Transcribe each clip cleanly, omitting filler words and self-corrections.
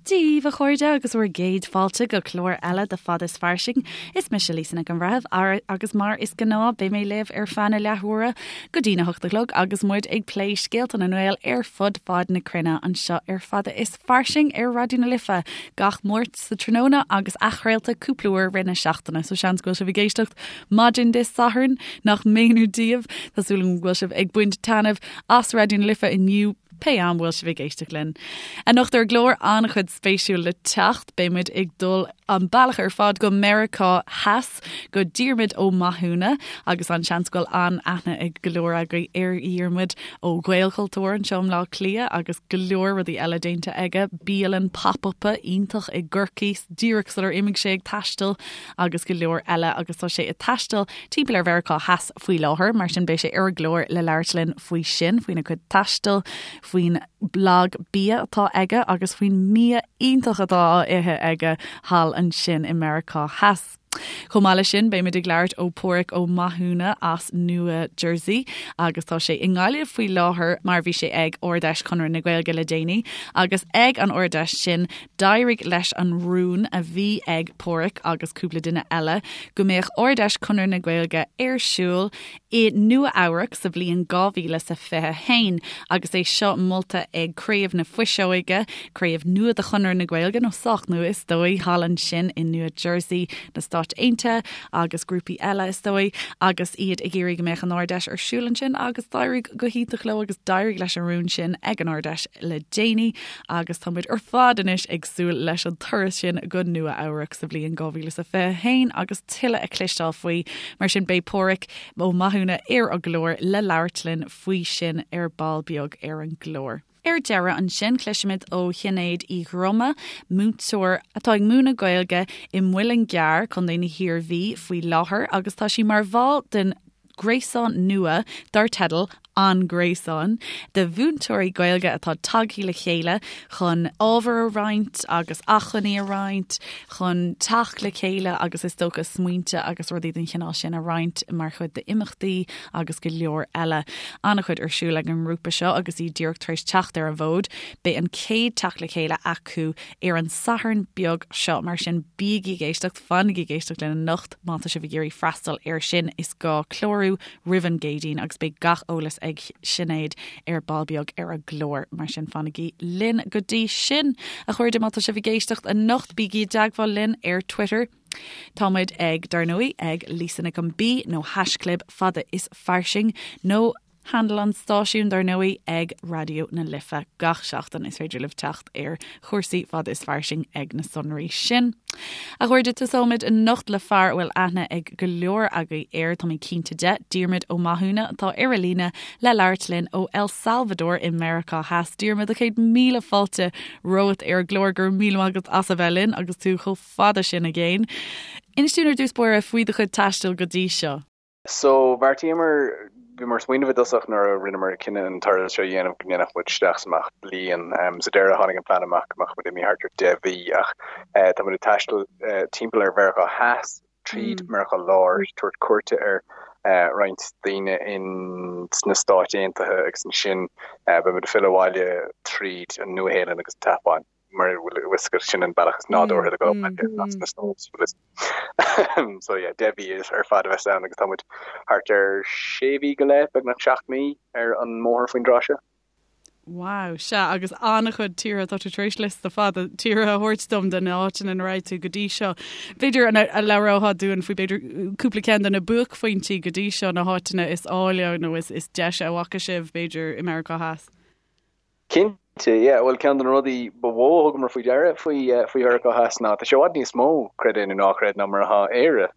Dia daoibh, a chairde, agus bhur gcéad fáilte go clár eile de Fada is Fairsing. Is mise Lisa Nic an Bhreithimh agus mar is gnáth beidh mé libh ar feadh na leathuaire go dtí na hocht a chlog agus muid ag plé scéalta na nGael ar fud fad na cruinne anseo ar Fada is Fairsing ar Raidió na Life gach Máirt sa tráthnóna agus athchraolta cúpla uair i rith na seachtaine. So seans go bhfuil sibh ag éisteacht maidin Dé Sathairn nach méanar daoibh. Tá súil agam go bhfuil sibh ag baint taitneamh as Raidió na Life inniu. Pé am bhfuil sibh ag éisteacht linn. Anocht ar an gclár an-chuid spéisiúil le teacht, beidh muid ag dul an bealach ar fad go Meiriceá Theas, go Diarmuid Ó Mathúna, agus an seans go bhfuil an-aithne ag go leor agaibh ar Dhiarmuid ó Ghaelchultúr anseo i mBleá Cliath agus go leor rudaí eile déanta aige, bialann pop-up iontach i gCorcaigh díreach sular imigh sé ag taisteal agus go leor eile agus tá sé ag taisteal timpeall ar Mheiriceá Theas faoi láthair, mar sin beidh sé ar an gclár le labhairt linn faoi sin, faoina chuid taistil, faoin blag bia atá aige agus faoin mbia iontach atá á ithe aige thall ansin i Meiriceá Theas. Chomh maith leis sin, beimid ag labhairt ó Páraic Ó Mathúna as Nua Jersey agus tá sé i nGaillimh faoi láthair mar bhí sé ag Ard-Fheis Chonradh na Gaeilge le déanaí agus ag an Ard-Fheis sin D'éirigh leis an rún a bhí ag Páraic agus cúpla duine eile go mbeadh Ard-Fheis Chonradh na Gaeilge ar siúl i Nua Eabhrac sa bhliain 2021 agus é seo molta ag Craobh na Fuiseoige, craobh nua de Chonradh na Gaeilge, nó sách nua is dóigh, thall ansin i Nua Jersey na Stáit Aontaithe agus grúpaí eile is dóigh, agus iad ag iarraidh go mbeadh an Ard-Fheis ar siúl ansin agus d'éirigh go hiontach leo agus d'éirigh leis an rún sin ag an Ard-Fheis le déanaí. Agus tá muid ar fad anois ag súil leis an turas sin go Nua Eabhrac sa bhliain 2021 agus tuilleadh a chloisteáil faoi. Mar sin beidh Páraic Ó Mathúna ar an gclár le labhairt linn faoi sin ar ball beag ar an gclár. Ar deireadh ansin cloisfimid ó Shinéad Uí Dhroma, múinteoir atá ag múineadh Gaeilge i Muileann gCearr, Contae na hIarmhí, faoi láthair agus tá sí mar bhall den ghréasán nua dar teideal An Gréasán de mhúinteoirí Gaeilge atá tagtha le chéile chun ábhar a roinnt agus acmhainní a roinnt, chun teacht le chéile agus is dócha smaointe agus rudaí den chineál sin a roinnt mar chuid d'imeachtaí agus go leor eile. An-chuid ar siúl ag an ngrúpa seo agus iad díreach tar éis teacht ar an bhfód. Beidh an chéad teacht le chéile acu ar an Satharn beag seo, mar sin bígí ag éisteacht, fanaigí ag éisteacht linn anocht. Má tá sibh ag iarraidh freastal air sin, is gá clárú roimh an gCéadaoin agus beidh gach eolas ag Sinéad ar ball beag ar an gclár. Mar sin fanaigí linn go dtí sin. A chairde, má tá sibh ag éisteacht anocht, bígí i dteagmháil linn ar Twitter. Tá muid ag, dar ndóigh, ag Lisa Nic an B nó haischlib fada is fairsing nó Handle an stáisiúin, dar ndóigh, ag Raidió na Life gach seachtain. Is féidir libh teacht ar chúrsaí fada is fairsing ag na sonraí sin. A chairde, tosóimid anocht le fear a bhfuil aithne ag go leor agaibh air, tá mé cinnte de, Diarmuid Ó Mathúna, atá ar an líne le labhairt linn ó El Salvador i Meiriceá Theas. Diarmuid, a chéad míle fáilte romhat ar an gclár, go raibh míle maith agat as a bheith linn agus tú chomh fada sin i gcéin. Inis dúinn ar dtús báire faoi do chuid taistil go dtí seo. So, bheartaíomar, bhíomar ag smaoineamh i dtosach nuair a rinneamar cinneadh an turas seo a dhéanamh go ndéanfadh muid isteach is amach bliain. Sa deireadh tháinig an plean amach go mbeadh muid imithe thart ar 10 mhí ach tá muid ag taisteal timpeall ar Mheiriceá Theas, tríd Meiriceá Láir, tabhairt cuairte ar roinnt daoine in sna Stáit Aontaithe agus ansin beidh muid ag filleadh abhaile tríd an Nua-Shéalainn agus an tSeapáin. mar a bhfuil a fhios agat sin an bealach is nádúrtha le dul as na States. So yeah, 10 mhí ar fad a bheas ann agus tá muid thart ar sé mhí go leith, beagnach 7 mí ar an mbóthar faoin dtráth seo. Wow, sea, agus an-chuid tíortha, tá tú tar éis liosta fada tíortha a thabhairt dom de na háiteanna ina raibh tú go dtí seo. B'fhéidir an labhrófá dúinn faoi b'fhéidir cúpla ceann de na buaicphointí go dtí seo, na háiteanna is áille nó is is deise a bhfaca sibh b'fhéidir i Meiriceá Theas. Cinnte, yeah. Bhuel, ceann de na rudaí ba mhó a thugamar faoi deara faoi faoi Mheiriceá Theas ná tá sé i bhfad níos mó, creid é nó ná creid, ná mar atá Éire.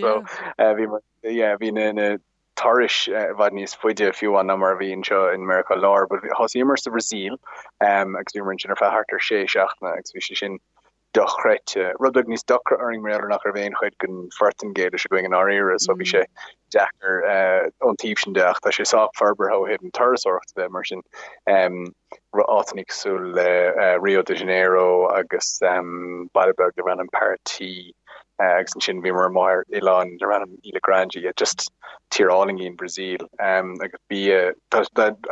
So, bhíomar, yeah, bhí na na turais i bhfad níos faide fiú amháin ná mar a bhí anseo in Meiriceá Láir. But thosaíomar sa Bhrasaíl agus bhíomar ansin ar feadh thart ar sé seachtaine agus bhí sé sin dochreidte. Rud beag níos deacra orainn mar gheall ar nach raibh aon chuid den Phortaingéilis againn i ndáiríre so bhí sé deacair ón taobh sin de ach tá sé sách forbartha ó thaobh na turasóireachta de mar sin áiteanna cosúil le Rio de Janeiro agus baile beag darb ainm Paraty. Agus ansin bhíomar amuigh ar oileán darb ainm Ilha Grande, yeah, just tír álainn í an Bhrasaíl. Agus bia, tá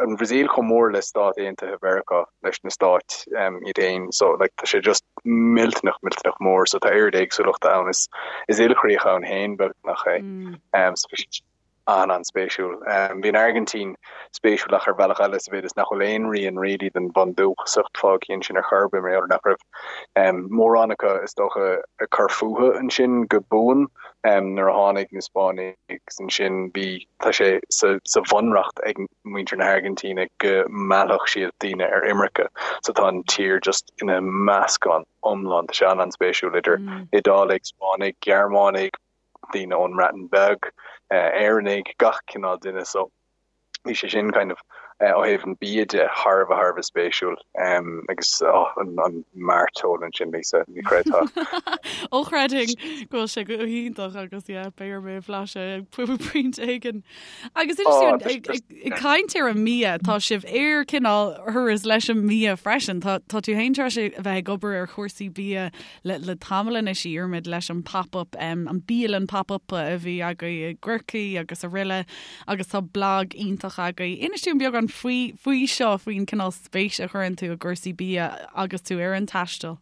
an Bhrasaíl chomh mór le Stáit Aontaithe Mheiriceá, leis na stáit iad féin, so like tá sé just millteanach, millteanach mór, so tá oiread éagsúlachta ann, is is ilchríoch ann féin beagnach é. So bhí sé an-an-spéisiúil. Bhí an Airgintín spéisiúil ach ar bhealach eile sa mhéid is nach bhfuil aon rian really den bhundúchasacht fágtha ansin ar chor ar bith mar gheall ar nach raibh mórán acu is dócha ag cur fúthu ansin go buan nuair a tháinig na Spáinnigh agus ansin bhí tá sé sa sa bhunreacht ag muintir na hAirgintíne go meallfadh siad daoine ar imirce so tá an tír just ina meascán iomlán tá sé an-an-spéisiúil idir Iodálaigh, Spáinnigh, Gearmánaigh, daoine ón mBreatain Bheag, Éireannaigh, gach cineál duine so bhí sé sin kind of ó thaobh an bia de thar a bheith thar a bheith spéisiúil agus oh an an mairteoil ansin Lisa, ní chreidfeá. Ó chreidfinn go bhfuil sé go hiontach agus yeah beidh orm é a bhlaiseadh ag pointe éigin. Agus inis dúinn ag ag caint ar an mbia tá sibh ar cineál thuras leis an mbia freisin tá tá tú féin tar éis a bheith ag obair ar chúrsaí bia le le tamall anois a Dhiarmuid leis an pop-up an bialann pop-up a bhí agaibh i gCorcaigh agus araile agus tá blag iontach agaibh. Inis dúinn beagán faoi faoi seo faoin cineál spéis a chuireann tú i gcúrsaí bia agus tú ar an taisteal.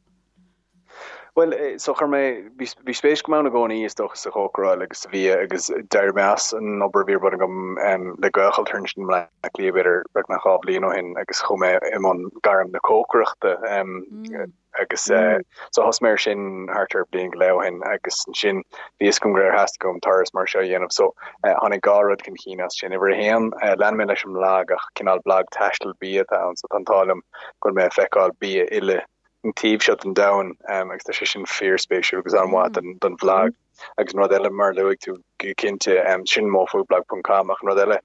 Bhuel, so chuir mé, bhí bhí spéis agam ann i gcónaí is dócha sa chócaráil agus sa bhia agus d'éirigh mé as an obair a bhí ar bun agam le Gaelchultúr ansin i mBleá Cliath b'fhéidir beagnach 2 bhliain ó shin agus chuaigh mé i mbun gairm na cócaireachta. Agus so thosaigh mé ar sin thart ar bliain go leith ó shin agus ansin bhí fhios agam gur theastaigh uaim turas mar seo a dhéanamh so tháinig dhá rud chun cinn as sin. Uimhir a haon, lean mé leis an mblag ach cineál blag taistil bia atá ann so tá an t-ádh liom go bhfuil mé ag feiceáil bia uile an taobh seo den domhan agus tá sé sin fíorspéisiúil agus an-mhaith don bhlag. Agus an rud eile mar a luaigh tú go cinnte, sin mofoodblog ponc com ach an rud eile,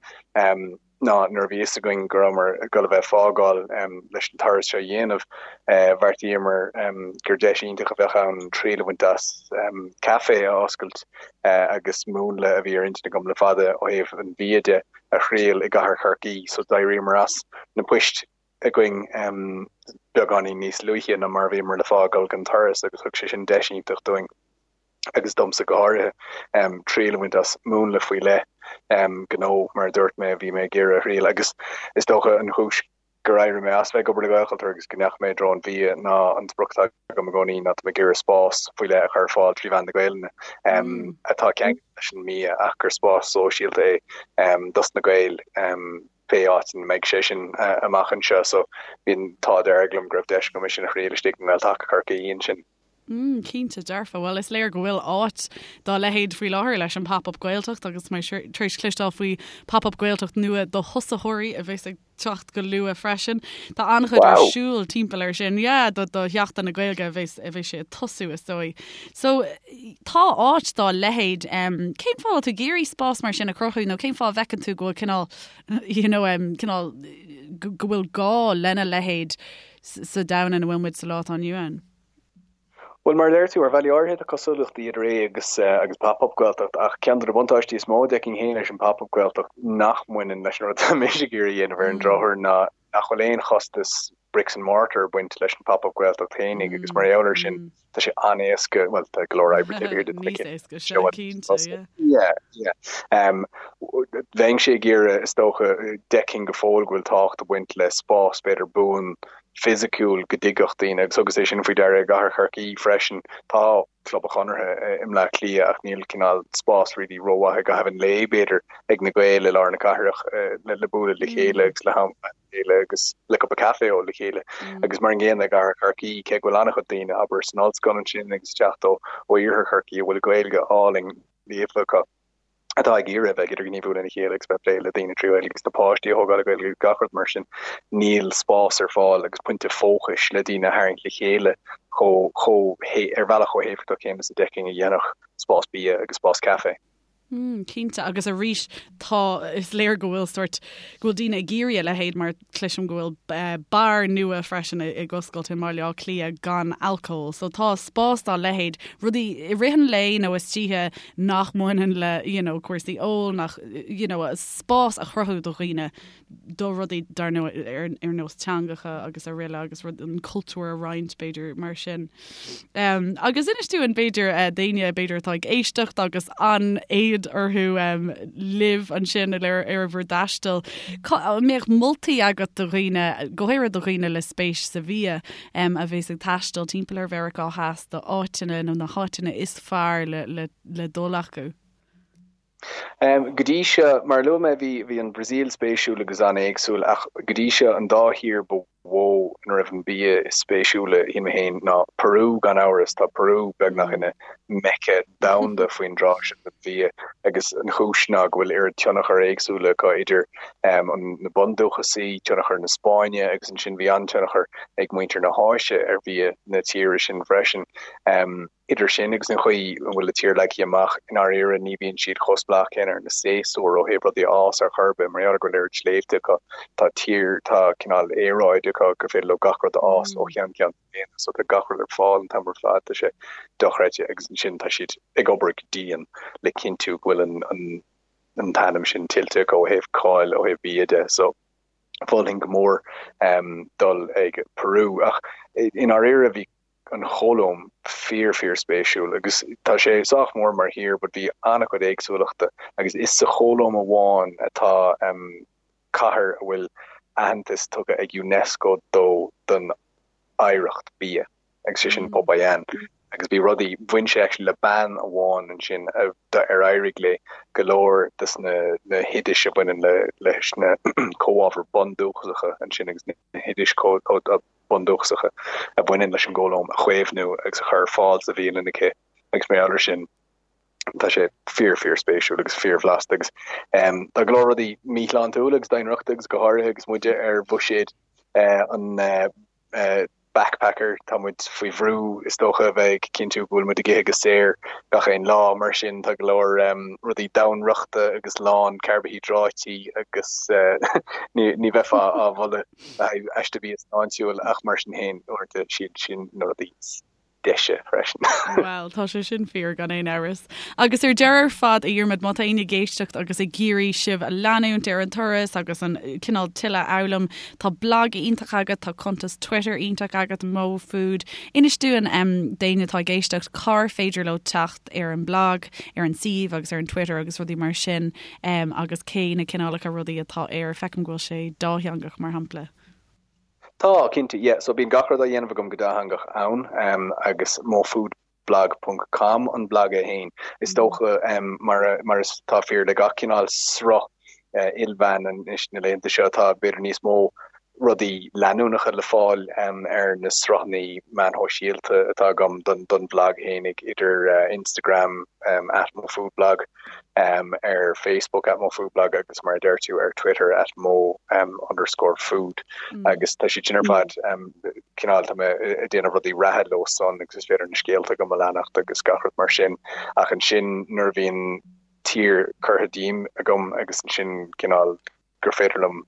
ná nuair a bhí fhios againn go rabhamar ag dul a bheith ag fágáil leis an turas seo a dhéanamh, bheartaíomar gur deis iontach a bheadh ann triail a bhaint as caife a oscailt agus múnla a bhí ar intinn agam le fada ó thaobh an bhia de a thriail i gcathair Chorcaí. So d'éiríomar as na poist againn beagáinín níos luaithe ná mar a bhíomar le fágáil don turas agus thug sé sin deis iontach dúinn. agus domsa go háirithe, triail a bhaint as múnla faoi leith gnó, mar a dúirt mé, a bhí mé ag iarraidh a thriail. Agus is dócha an chúis gur éirigh mé as bheith ag obair le Gaelchultúr agus go ndeachaigh mé i dtreo an bhia ná an sprioc atá agam i gcónaí ná tá mé ag iarraidh spás faoi leith a chur ar fáil trí mheán na Gaelainne atá ceangailte leis an mbia ach gur spás sóisialta é dos na Gaeil pé áit ina mbeidh sé sin amach anseo. So bhí an t-ádh dearg liom go raibh deis agam é sin a thriail istigh i nGael-Taca Chorcaí ansin. Mm, cinnte, dearfa. Bhuel, is léir go bhfuil áit dá leithéid faoi láthair leis an Pop-Up Gaeltacht agus mé tar éis cloisteáil faoi Pop-Up Gaeltacht nua do thosaitheoirí a bheas ag teacht go luath freisin. Tá an-chuid ar siúl timpeall air sin. Yeah, do, do Sheachtain na Gaeilge a bheas, a bheas sé ag tosú is dóigh. So, tá áit dá leithéid. Um, cén fáth tú ag iarraidh spás mar sin a chruthú nó cén fáth a bhfeiceann tú go bhfuil cineál, you know, um, cineál go, go bhfuil gá lena leithéid sa domhan ina bhfuil muid sa lá atá inniu ann? Bhuel, mar a deir tú, ar bhealaí áirithe tá cosúlachtaí idir é agus agus Pop Up Gaeltacht, ach ceann de na buntáistí is mó a d'fheicfinn féin leis an Pop Up Gaeltacht nach mbaineann leis an rud atá mise ag iarraidh a dhéanamh ar an drochuair ná nach bhfuil aon chostas bricks and mortar ag baint leis an Pop Up Gaeltacht féinig agus mar gheall air sin tá sé an-éasca, bhuel tá go leor oibre taobh thiar de Níos éasca, sea, cinnte, yeah. Yeah, yeah. Um, bheinnse ag iarraidh, is dócha, d'fheicfinn go fóill go bhfuil tábhacht ag baint le spás b'fhéidir buan fisiciúil go dtigeadh daoine agus thugas é sin faoi deara i gcathair Chorcaí freisin. Tá Club an Chonartha i mBleá Cliath ach níl cineál spás really rómhaith i gcaitheamh an lae b'fhéidir ag na Gaeil i lár na cathrach le bualadh le chéile agus le ham a chéile agus le cupa caife a ól le chéile. Agus mar an gcéanna i gcathair Chorcaí cé go bhfuil an-chuid daoine abair san ollscoil ansin agus ag teacht ó iarthar Chorcaí a bhfuil Gaeilge álainn líofa acu. atá ag iarraidh a bheith ag idirghníomhú lena chéile agus bheith ag plé le daoine trí Ghaeilge agus na páistí a thógáil le Gaeilge agus gach rud mar sin, níl spás ar fáil agus pointe fócais le daoine a tharraingt le chéile chomh, chomh, ar bhealach chomh héifeachtach céanna is a d'fheicfinn a dhéanfadh spás bia agus spás caife. Mm, cinnte, agus arís tá, is léir go bhfuil sórt, go bhfuil daoine ag iarraidh a leithéid mar cloisim go bhfuil eh, beár nua freisin ag oscailt i mBaile Átha Cliath gan alcól. So tá spás dá leithéid, rudaí i rith an lae nó istoíche nach mbaineann le, you know, cúrsaí óil, nach, you know, spás a chruthú do dhaoine do rudaí dar ndóigh ar nós teangacha agus araile agus rud an cultúr a roinnt b'fhéidir mar sin. Um, agus inis dúinn b'fhéidir uh, daoine b'fhéidir atá ag éisteacht agus an-éad orthu um, libh ansin ar, ar bhur dtaisteal. An mbeadh moltaí agat do dhaoine, go háirithe do dhaoine le spéis sa bhia um, a bhéas ag taisteal timpeall ar Mheiriceá Theas do áiteanna nó na háiteanna is fearr le, le, le dul acu? Go dtí seo, mar a luaigh mé, bhí bhí an Bhrasaíl spéisiúil agus an-éagsúil ach go dtí seo an dá thír ba mhó ina raibh an bia is spéisiúla, shíl mé féin, ná Peru gan amhras. Tá Peru beagnach ina Mecca domhanda faoin dtráth seo don bhia agus an chúis ná go bhfuil oiread tionchar éagsúla acu idir na bundúchasaigh, tionchar na Spáinne agus ansin bhí an-tionchar ag muintir na hÁise ar bhia na tíre sin freisin. Idir sin agus an chaoi a bhfuil an tír leagtha amach, i ndáiríre ní bhíonn siad chomh spleách céanna ar na séasúir ó thaobh rudaí a fhás ar chor ar bith. Mar gheall ar go bhfuil oiread sléibhte acu, tá tír, tá cineál aeráid acu gur féidir leo gach rud a fhás ó cheann ceann na bliana. So tá gach rud ar fáil an t-am ar fad, tá sé dochreidte agus ansin tá siad ag obair go dian le cinntiú go bhfuil an, an, an t-ainm sin tuillte acu ó thaobh cáil, ó thaobh bia de. So mholfainn go mór dul ag Peru ach i ndáiríre bhí an Cholóim fíor fíor spéisiúil agus tá sé sách mór mar thír but bhí an-chuid éagsúlachta agus is sa Cholóim amháin atá cathair a bhfuil aitheantas tugtha ag Unesco dó don oidhreacht bia agus sé sin Popayán agus bhí rudaí, bhain sé actually le bean amháin ansin a ar éirigh léi go leor des na na hoidis a bhaineann le leis na comhábhair bundúchasacha ansin agus na hoidis bundúchasacha a bhaineann leis an gColóim a chaomhnú agus a chur ar fáil sa bhialann aici agus mar gheall air sin tá sé fíor fíor spéisiúil agus fíor bhlasta agus tá go leor rudaí míshláintiúil agus domhainriochta agus go háirithe agus muide ar bhuiséad an backpacker, tá muid faoi bhrú is dócha a bheith ag cinntiú go bhfuil muid ag ithe go saor gach aon lá, mar sin tá go leor rudaí domhainriochta agus lán carbaihiodráití agus ní bheifeá á mholadh le haghaidh aiste bia sláintiúil ach mar sin féin uaireanta siad sin na rudaí is deise freisin. Bhuel, tá sé sin fíor gan aon amhras. Agus ar deireadh ar fad, a Dhiarmaid, má tá éinne ag éisteacht agus ag iarraidh sibh a leanúint ar an turas agus an cineál tuilleadh a fhoghlaim, tá blag iontach agat, tá cuntas Twitter iontach agat, Mo Food. Inis dúinn d'éinne atá ag éisteacht cár féidir leo teacht ar an mblag, ar an suíomh agus ar an Twitter agus rudaí mar sin agus cé na cineálacha rudaí atá air. Feicim go bhfuil sé dátheangach, mar shampla. Tá, cinnte, yeah. So bíonn gach rud á dhéanamh agam go dátheangach ann agus mofoodblog ponc com an blag é féin. Is dócha, mar mar is atá fíor le gach cineál sruth ilmheán anois na laethanta seo, tá b'fhéidir níos mó rudaí leanúnacha le fáil ar na sruthanna meáin shóisialta atá agam don bhlag fhéinig, idir Instagram, at mofoodblog, ar Facebook, at mofoodblog, agus mar a deir tú, ar Twitter, at mo underscore food. Agus tá siad sin ar fad, cineál, tá mé ag déanamh rudaí reatha leo san agus is féidir na scéalta agam a leanacht agus gach rud mar sin. Ach ansin nuair a bhíonn tír curtha díom agam agus ansin cineál, gur féidir liom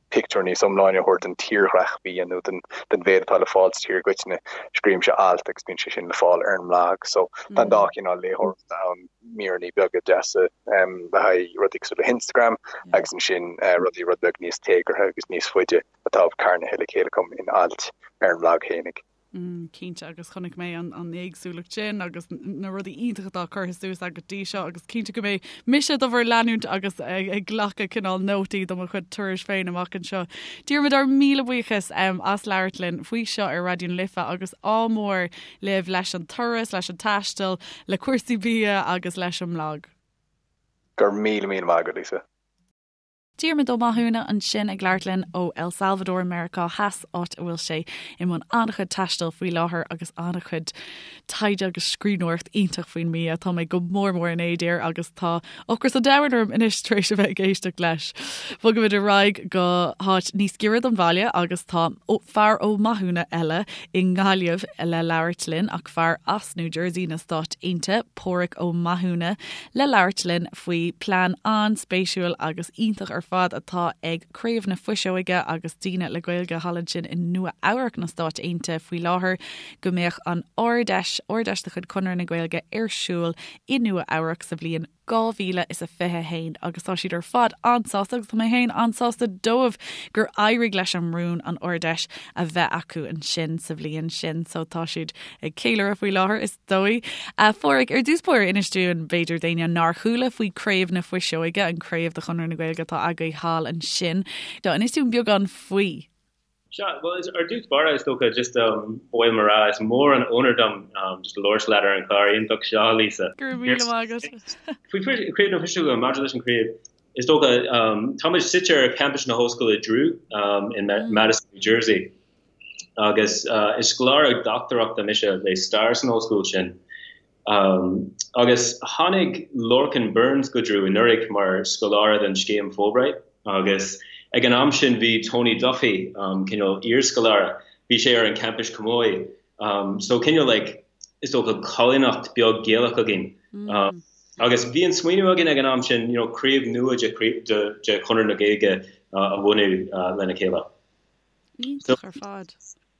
pictiúr níos iomláine a thabhairt den tírdhreach bia nó den mhéid atá le fáil sa tír i gcoitinne, scríobhaimse alt agus bíonn sé sin le fáil ar an mblag. So tá an dá chineál léitheoireachta ann, míreanna beaga deasa le haghaidh rudaí cosúil le hInstagram agus ansin rudaí rud beag níos téagartha agus níos faide atá carnaithe le chéile agam in ailt ar an mblag fhéinig. Mm, cinnte agus chonaic mé an, an éagsúlacht sin agus na rudaí iontacha atá curtha suas agat go dtí seo agus cinnte go mbeidh mise do bhur leanúint agus ag, ag glacadh cineál nótaí do mo chuid turais féin amach anseo. Diarmuid ár míle buíochas um, as labhairt linn faoi seo ar Raidió na Life agus ádh mór libh leis an turas, leis an taisteal, le cúrsaí bia agus leis an mblag. Go raibh míle míle maith agat, Lisa. Diarmuid Ó Mathúna ansin ag labhairt linn ó El Salvador, Meiriceá Theas, áit a bhfuil sé i mbun an-chuid taistil faoi láthair agus an-chuid taighde agus scríbhneoireacht iontach faoin mbia. Tá mé go mór mór in éad air agus tá ocras an domhain orm anois tar éis a bheith ag éisteacht leis. Bogaimid ar aghaidh go háit níos giorra don bhaile agus tá fear Ó Mathúna eile i nGaillimh le labhairt linn ach fear as New Jersey na Stáit Aontaithe, Páraic Ó Mathúna, le labhairt linn faoi plean an-spéisiúil agus iontach ar fad atá ag Craobh na Fuiseoige agus daoine le Gaeilge thall ansin i Nua Eabhrac na Stáit Aontaithe faoi láthair go mbeadh an Ard-Fheis, Ard-Fheis de chuid Chonradh na Gaeilge ar siúl i Nua Eabhrac sa bhliain 2021 agus tá siad ar fad an-sásta agus tá mé féin an-sásta dóibh gur éirigh leis an rún an Ard-Fheis a bheith acu ansin sa bhliain sin so tá siad ag ceiliúradh faoi láthair is dóigh. A Pháraic, ar dtús báire inis dúinn, b'fhéidir d'éinne nár chuala faoi Craobh na Fuiseoige, an craobh de Chonradh na Gaeilge atá agaibh thall ansin. Inis dúinn beagán faoi. Sea, bhuel, ar dtús báire, is dócha, just ba mhaith liom a rá, is mór an onóir dom just labhairt leat ar an chlár iontach seo, Lisa. Go raibh míle maith agat. Faoi Chraobh na Fuiseoige, maidir leis an chraobh, is dócha, táimid suite ar champas na hOllscoile Drew in Madison, New Jersey. Agus is scoláire dochtúireachta mise le stair san ollscoil sin. Agus tháinig Lorcan Burns go Drew anuraidh mar scoláire den scéim Fulbright agus ag an am sin bhí Tony Duffy, cineál iarscoláire, bhí sé ar an campus chomh maith. So cineál like is dócha coilíneacht beag Gaelach againn. Agus bhí an smaoineamh againn ag an am sin, you know, craobh nua de de Chonradh na Gaeilge a bhunú lena chéile. Iontach ar fad.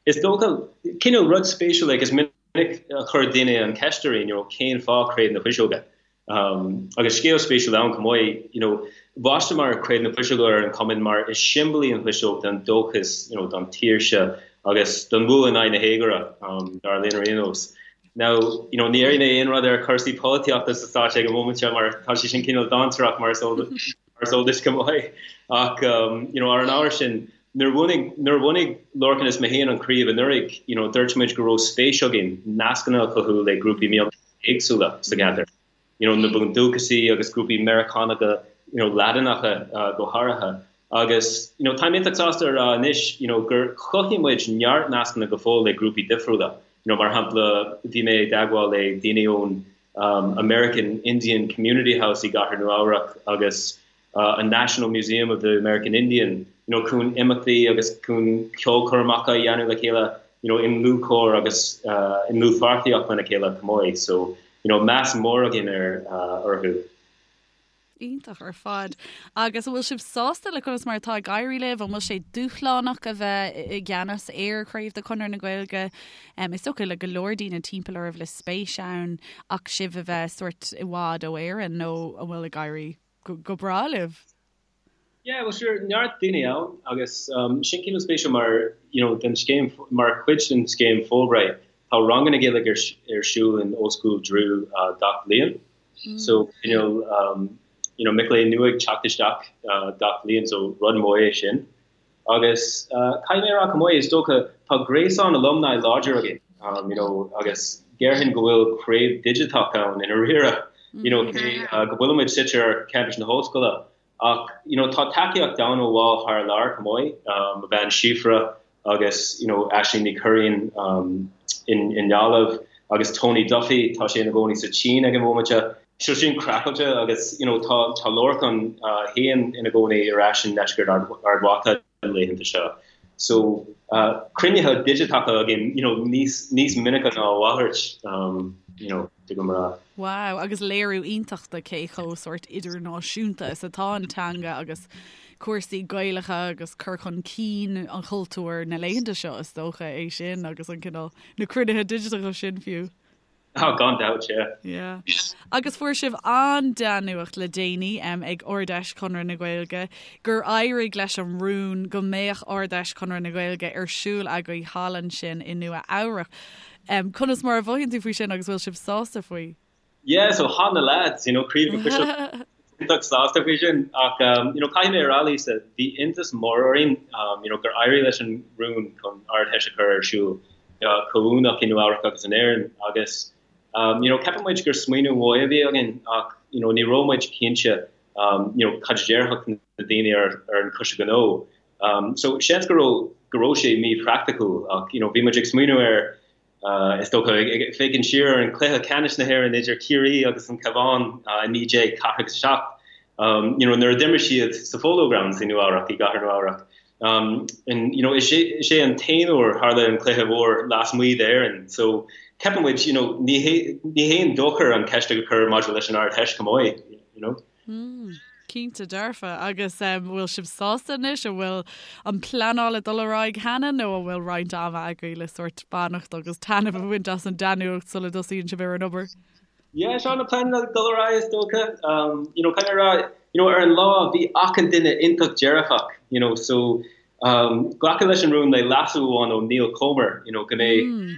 Is dócha, cineál rud spéisiúil like is minic a chuir daoine an cheist orainn, you know, cén fáth Craobh na Fuiseoige? Um, agus scéal spéisiúil ann chomh maith, you know, bhaisteamar Craobh na Fuiseoige ar an cumann mar is siombail í an fuiseog don dóchas, you know, don tsaoirse agus don bhua in aghaidh na héagóra, um, dar linn ar aon nós. Now, you know, ní déarfaidh mé aon rud ar chúrsaí polaitíochta sa Stáit ag an móimint seo mar tá sé sin cineál dainséarach mar is eol mar is eol duit go maith. Ach, um, you know, ar an ábhar sin, nuair a bhunaigh, nuair a bhunaigh Lorcan is mé féin an chraobh anuraidh, you know, dúirt muid go raibh spéis againn nascanna a chothú le grúpaí mionteanga éagsúla sa gceantar, you know, na Bundúchasaigh agus grúpaí Meiriceánacha, you know, Laidineacha uh, go háirithe. Agus, you know, táim iontach sásta a rá anois, you know, gur chothaigh muid neart nascanna go fóill le grúpaí difriúla. You know, mar shampla, bhí mé i dteagmháil le daoine ón um, American Indian Community House i gCathair Nua-Eabhrac agus uh, an National Museum of the American Indian, you know, chun imeachtaí agus chun ceolchoirmeacha a dhéanamh le chéile, you know, i ndlúthchomhar agus uh, i ndlúthpháirtíocht lena chéile chomh maith. So, you know, meas mór againn ar uh, orthu. Iontach ar fad. Agus an bhfuil sibh sásta le conas mar atá ag éirí libh? An bhfuil sé dúshlánach a bheith i gceannas ar chraobh de Chonradh na Gaeilge? Is dócha le go leor daoine timpeall oraibh le spéis ann ach sibh a bheith sórt i bhfad ó Éirinn nó an bhfuil ag éirí go breá libh? Yeah, well sure, neart daoine ann agus um, sin cineál spéisiúil mar, you know, den scéim, mar chuid den scéim Fulbright, tá ranganna Gaeilge ar, ar siúl in Ollscoil Drew uh, gach bliain. Mm. So, cineál, um, you know, mic léinn nua ag teacht isteach uh, gach bliain, so rud mór é sin. Agus uh, caithfidh mé a rá chomh maith, is dócha, tá gréasán alumni láidir againn, um, you know, agus déarfainn go bhfuil craobh digiteach ann i ndáiríre, you know, cé uh, go bhfuilimid suite ar campus na hollscoile, ach, you know, tá tacaíocht ann ó bhaill thar lear chomh maith, um, mo bhean Síofra agus, you know, Aisling Ní Churraoin um, in, i nGaillimh agus Tony Duffy, tá sé ina gcónaí sa tSín ag an bhomaite. So sin craiceáilte agus, you know, tá, tá Lorcan uh, féin ina gcónaí ar ais i ndeisceart Ard, Ard Mhacha na laethanta seo. So, uh, cruinnithe digiteacha againn, you know, níos, níos minice ná a mhalairt, um, you know, de go mra. Wow, agus léiriú iontach de cé chomh sórt idirnáisiúnta is atá an teanga agus cúrsaí Gaelacha agus cur chun cinn an chultúir na laethanta seo is dócha é sin agus an cineál na cruinnithe digiteacha sin fiú. Oh, gan dabht, yeah. Yeah. Agus fuair sibh an-dea-nuacht le déanaí um, ag Ard-Fheis Chonradh na Gaeilge gur éirigh leis an rún go mbeadh Ard-Fheis Chonradh na Gaeilge ar siúl agaibh thall ansin i Nua Eabhrac. Um, conas mar a mhothaíonn tú faoi sin agus bhfuil sibh sásta faoi? Yeah, so tá na lads, you know, Craobh na Fuiseoige iontach sásta faoi sin ach um, you know, caithfidh mé a rá Lisa, bhí iontas mór orainn um, you know, gur éirigh leis an rún chun Ard-Fheis a chur ar siúl uh, comhuaineach i Nua Eabhrac agus in Éirinn agus um, you know, ceapann muid gur smaoineamh mhaith a bhí againn ach you know, ní raibh muid cinnte. you know, cad a déarfadh na daoine ar ar an Choiste Gnó. So seans go raibh go raibh sé míphraiticiúil ach you know bhí muid ag smaoineamh ar is dócha ag féachaint siar ar an cluiche ceannais na hÉireann idir Ciarraí agus an Cabhán i 1947 you know nuair a d'imir siad sa Polo Grounds i Nua Eabhrac i gcathair Nua Eabhrac. And you know is é is é an t-aon uair tharla an cluiche mhór lasmuigh d'Éirinn so ceapann muid you know ní hé ní haon dochar an ceist a chur maidir leis an Ard-Fheis chomh maith you know. Mm, cinnte dearfa. Agus an bhfuil sibh sásta anois? An bhfuil an pleanáil ag dul ar aghaidh cheana nó an bhfuil roinnt ama agaibh le sórt fanacht agus taitneamh a bhaint as an dea-nuacht sula dtosaíonn sibh ar an obair? Yeah, seo na pleananna ag dul ar aghaidh is dócha. Um, you know, kind of rá, you know, ar an lá bhí achan duine iontach dearfach, you know, so um, glacadh leis an rún le leasú amháin ó Niall Comer, you know, go mbeidh mm.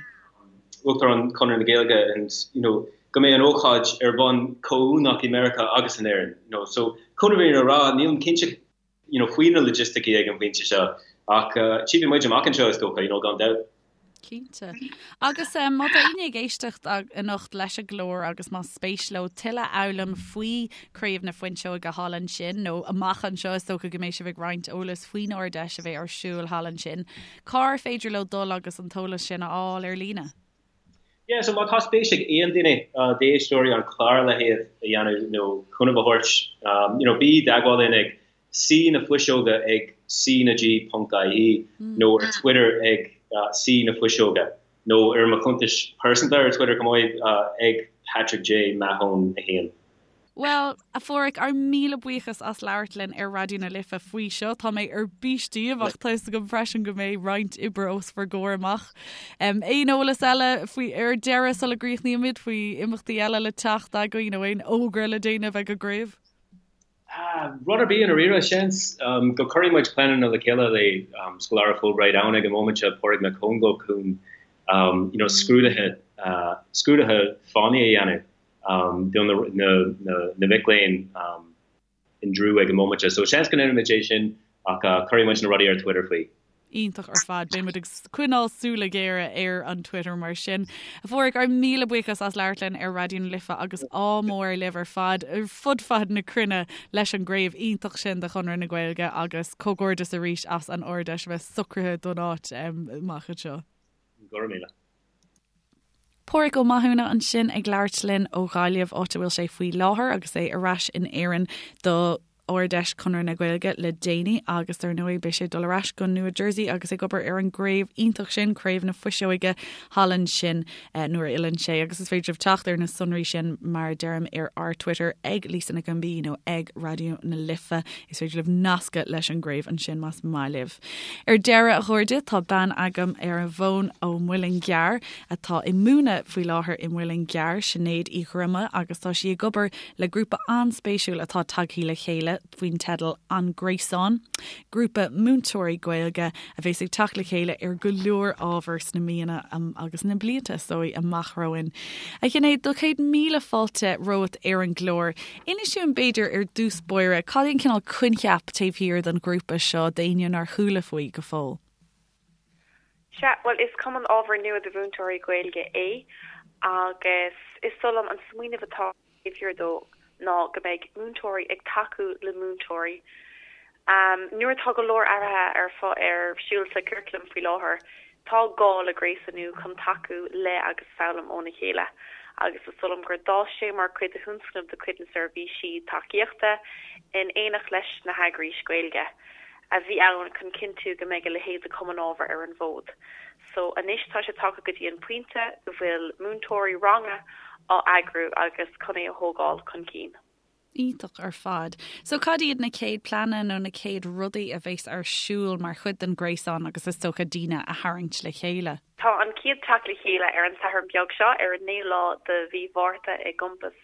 Uachtarán Chonradh na Gaeilge and, you know, go mbeidh an ócáid ar bhonn comhuaineach i Meiriceá agus in Éirinn, you know, so chun an fhírinne a rá, nílim cinnte, you know, faoi na logisticí ag an bpointe seo ach uh, tchífidh muid amach anseo is dócha, you know, gan dabht. Cinnte. Agus um, má tá éinne ag éisteacht anocht leis an gclár agus más spéis leo tuilleadh a fhoghlaim faoi Craobh na Fuinseoige thall ansin nó amach anseo is dócha go mbeidh sibh ag roinnt eolas faoin Ard-Fheis a bheidh ar siúl thall ansin. Cár féidir leo dul agus an t-eolas sin a fháil ar líne? Yeah, so má tá spéis ag aon duine d'éisteoirí an clár a leithéid a dhéanamh nó cúnamh a thabhairt, you know, bí i dteagmháil linn ag C na Fuiseoga ag C na G ponc IE nó ar Twitter ag C na Fuiseoga nó ar mo chuntais pearsanta ar Twitter chomh maith ag Patrick J Mahon 1. Bhuel, a Pháraic, ár míle buíochas as labhairt linn ar Raidió na Life faoi seo. Tá mé ar bís daoibh ach tá fhios agam freisin go mbeidh roinnt oibre os bhur gcomhair amach. Aon eolas eile faoi ar deireadh sula gcríochnaímid faoi imeachtaí eile le teacht agaibh nó aon fhógra le déanamh ag an gcraobh? Rud ar bith i ndáiríre, seans go cuirfidh muid pleananna le chéile le scoláire Fulbright ann ag an móimint seo, Pádraig Mac Congáil chun you know scrúduithe scrúduithe fánaí a dhéanamh. do na mic léinn in Drew ag an móimint seo. So seans go ndéanfaimid é sin ach cuirfidh muid na rudaí ar Twitter faoi. Iontach ar fad. Beidh muid ag coinneáil súile géara ar an Twitter mar sin. A Pháraic, ár míle buíochas as labhairt linn ar Raidió na Life agus ádh mór libh ar fad ar fud fad na cruinne leis an gcraobh iontach sin de Chonradh na Gaeilge agus comhghairdeas arís as an Ard-Fheis a bheith socraithe don áit amach anseo. Go raibh míle. Páraic Ó Mathúna ansin ag labhairt linn ó Ghaillimh, áit a bhfuil sé faoi láthair agus é ar ais in Éirinn do Ard-Fheis Chonradh na Gaeilge le déanaí agus dar ndóigh beidh sé ag dul ar ais go Nua Jersey agus ag obair ar an gcraobh iontach sin, Craobh na Fuiseoige thall ansin nuair a fhilleann sé agus is féidir libh teacht ar na sonraí sin mar a deirim ar ár Twitter ag Lisa Nic an B nó ag Raidió na Life. Is féidir libh nascadh leis an gcraobh ansin más maith libh. Ar deireadh, a chairde, tá bean agam ar an bhfón ó Mhuileann gCearr atá ag múineadh faoi láthair i Muileann gCearr, Sinéad Uí Dhroma, agus tá sí ag obair le grúpa an-spéisiúil atá tagthaí le chéile faoin teideal An Gréasán, grúpa múinteoirí Gaeilge a bheas ag teacht le chéile ar go leor ábhar sna míonna agus na blianta, is dóigh, amach romhainn. A Shinéad, do 100,000 fáilte romhat ar an gclár. Inis dúinn b'fhéidir ar dtús báire, cad é an cineál coincheap taobh thiar den ghrúpa seo d'éinne nár chuala faoi go fóill? Sea, bhuel is cumann ábhair nua do mhúinteoirí Gaeilge é agus is dóigh liom an smaoineamh atá taobh thiar dó ná go mbeidh múinteoirí ag tacú le múinteoirí. Nuair atá go leor athruithe ar ar siúl sa churaclam faoi láthair, tá gá le gréasánú chun tacú le agus foghlaim óna chéile agus is dóigh liom gur d'fhás sé mar chuid de thionscnamh de chuid na seirbhísí tacaíochta in éineacht leis na heagrais Ghaeilge a bhí ann chun cinntiú go mbeidh a leithéid de chumann ábhair ar an bhfód. So anois tá sé tagtha go dtí an pointe go bhfuil múinteoirí ranga á eagrú agus chun é a thógáil chun cinn. Iontach ar fad. So cad iad na chéad pleananna nó na chéad rudaí a bheas ar siúl mar chuid den ghréasán agus is dócha daoine a tharraingt le chéile? Tá an chéad teacht le chéile ar an Satharn beag seo, ar an naoú lá de mhí Mhárta i gCampas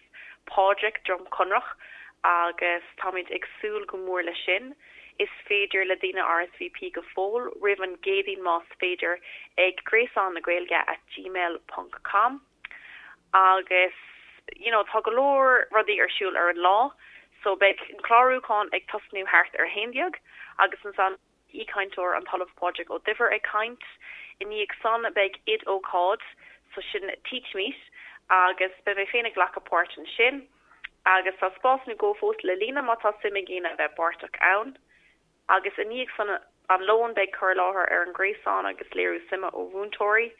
Phádraig, Droim Conrach agus táimid ag súil go mór leis sin. Is féidir le daoine RSVP go fóill roimh an gCéadaoin más féidir ag gréasán na Gaeilge at gmail ponc com. Agus you know tá go leor rudaí ar siúl ar an lá so beidh an clárúchán ag tosnú thart ar a 11 agus ansan aoichainteoir an tOllamh Pádraig Ó Duibhir ag caint. I ndiaidh san beidh oid-ócáid so sin TeachMeet agus beidh mé féin ag glacadh páirt ansin. Agus tá spás nó dhó fós le líonadh má tá suim ag éinne a bheith páirteach ann. Agus i ndiaidh san an lón beidh cur i láthair ar an ghréasán agus léiriú suime ó mhúinteoirí.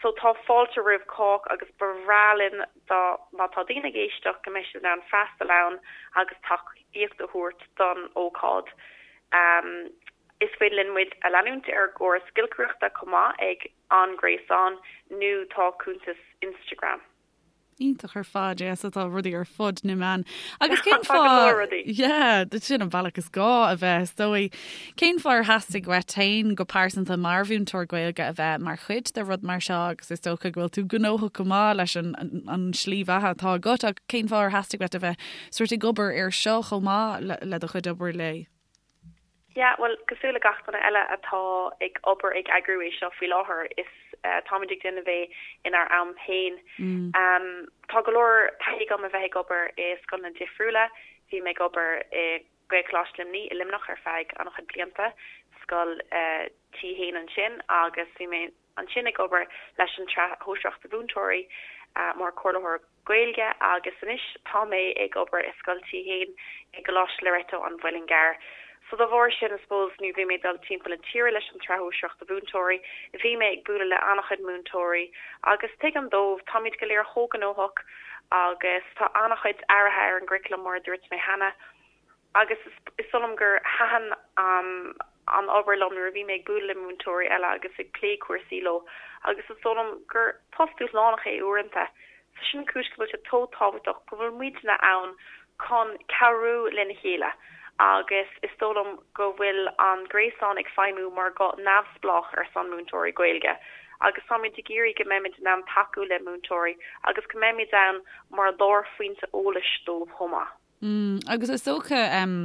So tá fáilte roimh chách agus ba bhreá linn dá má tá daoine ag éisteacht go mbeidh siad in ann freastal ann agus tacaíocht a thabhairt don ócáid. Is féidir linn muid a leanúint ar an gCóras Giolcaireachta chomh maith ag An Gréasán nó tá cuntas Instagram. Iontach ar fad, yeah, so tá rudaí ar fud na meán. Agus cén fáth... Tá go leor rudaí. Yeah, sin an bealach is gá a bheith, is dóigh. Cén fáth ar theastaigh uait féin go pearsanta mar mhúinteoir Gaeilge a bheith mar chuid de rud mar seo agus is dócha go bhfuil tú gnóthach go maith leis an, an, an slí bheatha atá agat ach cén fáth ar theastaigh uait a bheith sort ag obair ar seo chomh maith le, le do chuid obair lae? Yeah, bhuel, cosúil le gach duine eile atá ag obair ag eagrú é seo faoi láthair, is táimid ag déanamh é inár am féin. Tá go leor taithí agam a bheith ag obair i scoileanna difriúla. Bhí mé ag obair i Gaelcholáiste Luimnigh i Luimneach ar feadh an-chuid blianta, scoil T1 ansin, agus bhí mé ansin ag obair leis an tSraith Shóisearach do Mhúinteoirí mar chomhairleoir Gaeilge agus anois tá mé ag obair i Scoil T1 i gColáiste Loreto an Mhuilinn gCearr. So dá bharr sin I suppose nuair bhí mé ag dul timpeall na tíre leis an tSraith Shóisearach do Mhúinteoirí bhí mé ag bualadh le an-chuid múinteoirí agus tuigim dóibh, táimid go léir chomh gnóthach agus tá an-chuid athruithe ar an gcuraclam mar a dúirt mé cheana. Agus is dóigh liom gur thaitin an obair liom nuair a bhí mé ag bualadh le múinteoirí eile agus ag plé cúrsaí leo agus is dóigh liom gur post dúshlánach é uaireanta. So sin an cúis go bhfuil sé chomh tábhachtach go bhfuil muidne ann chun cabhrú lena chéile agus is dóigh liom go bhfuil an gréasán ag feidhmiú mar ghuth neamhspleách ar son múinteoirí Gaeilge agus táimid ag iarraidh go mbeimid in ann tacú le múinteoirí agus go mbeimid ann mar lárphointe eolais dóibh chomh maith. Mm, agus is dócha um,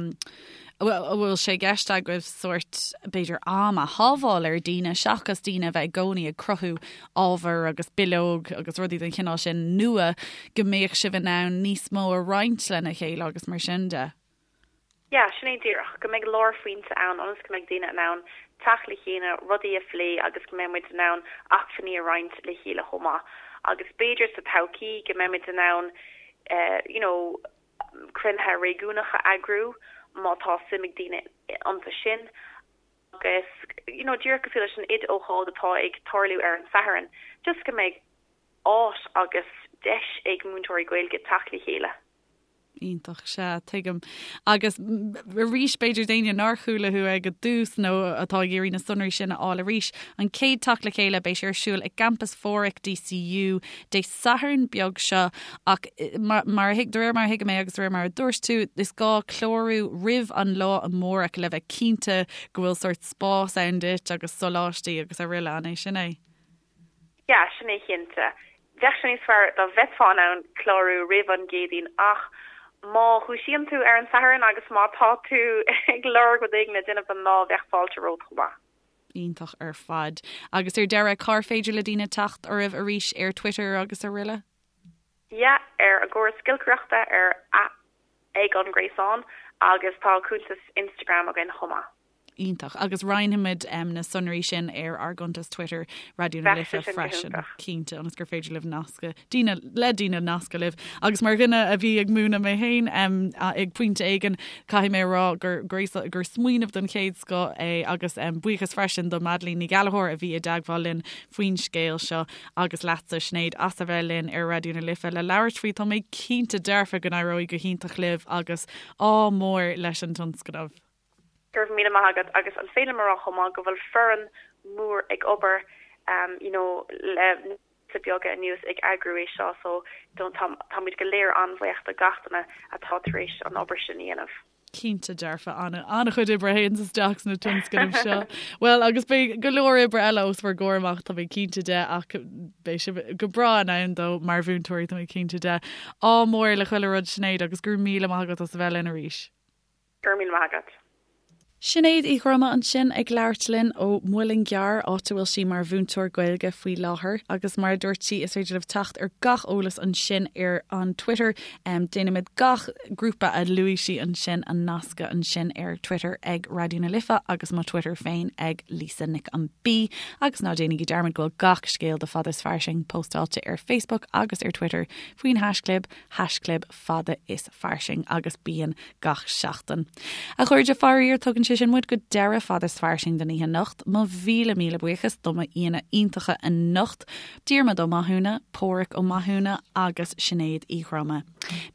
a bhfuil sé i gceist agaibh sórt b'fhéidir am a shábháil ar daoine seachas daoine a bheith i gcónaí ag cruthú ábhar agus bileog agus rudaí den chineál sin nua go mbeadh sibh in ann níos mó a roinnt lena chéile agus mar sin de. Yeah, sin é díreach, go mbeidh lárphointe ann ionas go mbeidh daoine in ann teacht le chéile, rudaí a phlé agus go mbeidh muid in ann acmhainní a roinnt le chéile chomh maith. Agus b'fhéidir sa todhchaí go mbeidh muid in ann you know, cruinnithe réigiúnacha a eagrú má tá suim ag daoine iontu sin agus, you know, díreach cosúil leis an oid-ócáid atá ag tarlú ar an Satharn, just go mbeidh áit agus deis ag múinteoirí Gaeilge teacht le chéile. Iontach, sea, tuigim. Agus arís, b'fhéidir d'éinne nár chuala thú ag an dtús nó atá ag iarraidh na sonraí sin a fháil arís, an chéad teacht le chéile, beidh sé ar siúl i gCampas Phádraig DCU Dé Sathairn beag seo ach mar a thuig, de réir mar a thuigim é agus de réir mar a dúirt tú, is gá clárú roimh an lá amárach le bheith cinnte go bhfuil sórt spás ann duit agus soláistí agus araile, an é sin é? Yeah, sin é cinnte. Bheadh sé níos fearr dá mbeifeá in ann clárú roimh an gCéadaoin ach má dhúisíonn tú ar an Satharn agus má tá tú ag lorg rud éigin le déanamh don lá, bheadh fáilte romhat chomh maith. Iontach ar fad. Agus ar deireadh, cár féidir le daoine teacht oraibh arís ar Twitter agus araile? Yeah, ar an gCóras Giolcaireachta ar ag an Gréasán agus tá cuntas Instagram againn chomh maith. Iontach. Agus roinnfimid na sonraí sin ar ár gcuntas Twitter, Raidió na Life freisin, cinnte, ionas gur féidir libh nascadh, daoine, le daoine nascadh libh. Agus mar dhuine a bhí ag múineadh mé féin ag pointe éigin, caithfidh mé a rá gur gur smaoineamh den chéad scoth é agus buíochas freisin do Madeleine Ní Ghallchóir a bhí i dteagmháil linn faoin scéal seo agus leatsa Sinéad as a bheith linn ar Raidió na Life le labhairt faoi. Tá mé cinnte dearfa go n-éireoidh go hiontach libh agus ádh mór leis an tionscnamh. Go raibh míle maith agat agus an féidir liom a rá chomh maith go bhfuil foireann mór ag obair you know le míosa beaga anuas ag eagrú é seo so don't tá táimid go léir an-bhuíoch do gach duine atá tar éis an obair sin a dhéanamh. Cinnte dearfa, an-chuid oibre a théanns isteach sna tionscnaimh seo. Bhuel agus beidh go leor oibre eile os bhur gcomhair amach tá mé cinnte de ach beidh sibh go breá in ann dó mar mhúinteoirí tá mé cinnte de. Ádh mór le chuile rud Sinéad agus go raibh míle maith agat as a bheith linn arís. Go raibh míle maith agat. Sinéad Uí Dhroma ansin ag labhairt linn ó Mhuileann gCearr, áit a bhfuil sí mar mhúinteoir Gaeilge faoi láthair. Agus mar a dúirt sí, is féidir libh teacht ar gach eolas ansin ar an Twitter. Déanaimid gach grúpa a luaigh sí ansin a nascadh ansin ar Twitter ag Raidió na Life agus mo Twitter féin ag Lisa Nic an B. Agus ná déanaigí dearmad go bhfuil gach scéal de Fada is Fairsing póstáilte ar Facebook agus ar Twitter faoin haischlib, haischlib fada is fairsing agus bíonn gach seachtain. A chairde, faraor, tugann sé sin muid go deireadh Fada is Fairsing don oíche anocht. Mo mhíle míle buíochas do m'aíonna iontacha anocht, Diarmuid Ó Mathúna, Páraic Ó Mathúna agus Sinéad Uí Dhroma.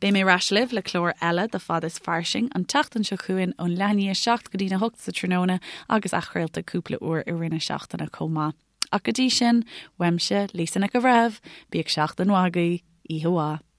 Beidh mé ar ais libh le clár eile de Fada is Fairsing an tseachtain seo chugainn ón leath i ndiaidh a 7 go dtína 8 sa tráthnóna agus athchraolta cúpla uair i rith na seachtaine chomh maith. Ach go dtí sin, uaimse, Lisa Nic an Bhreithimh, bíodh seachtain mhaith agaibh, oíche mhaith.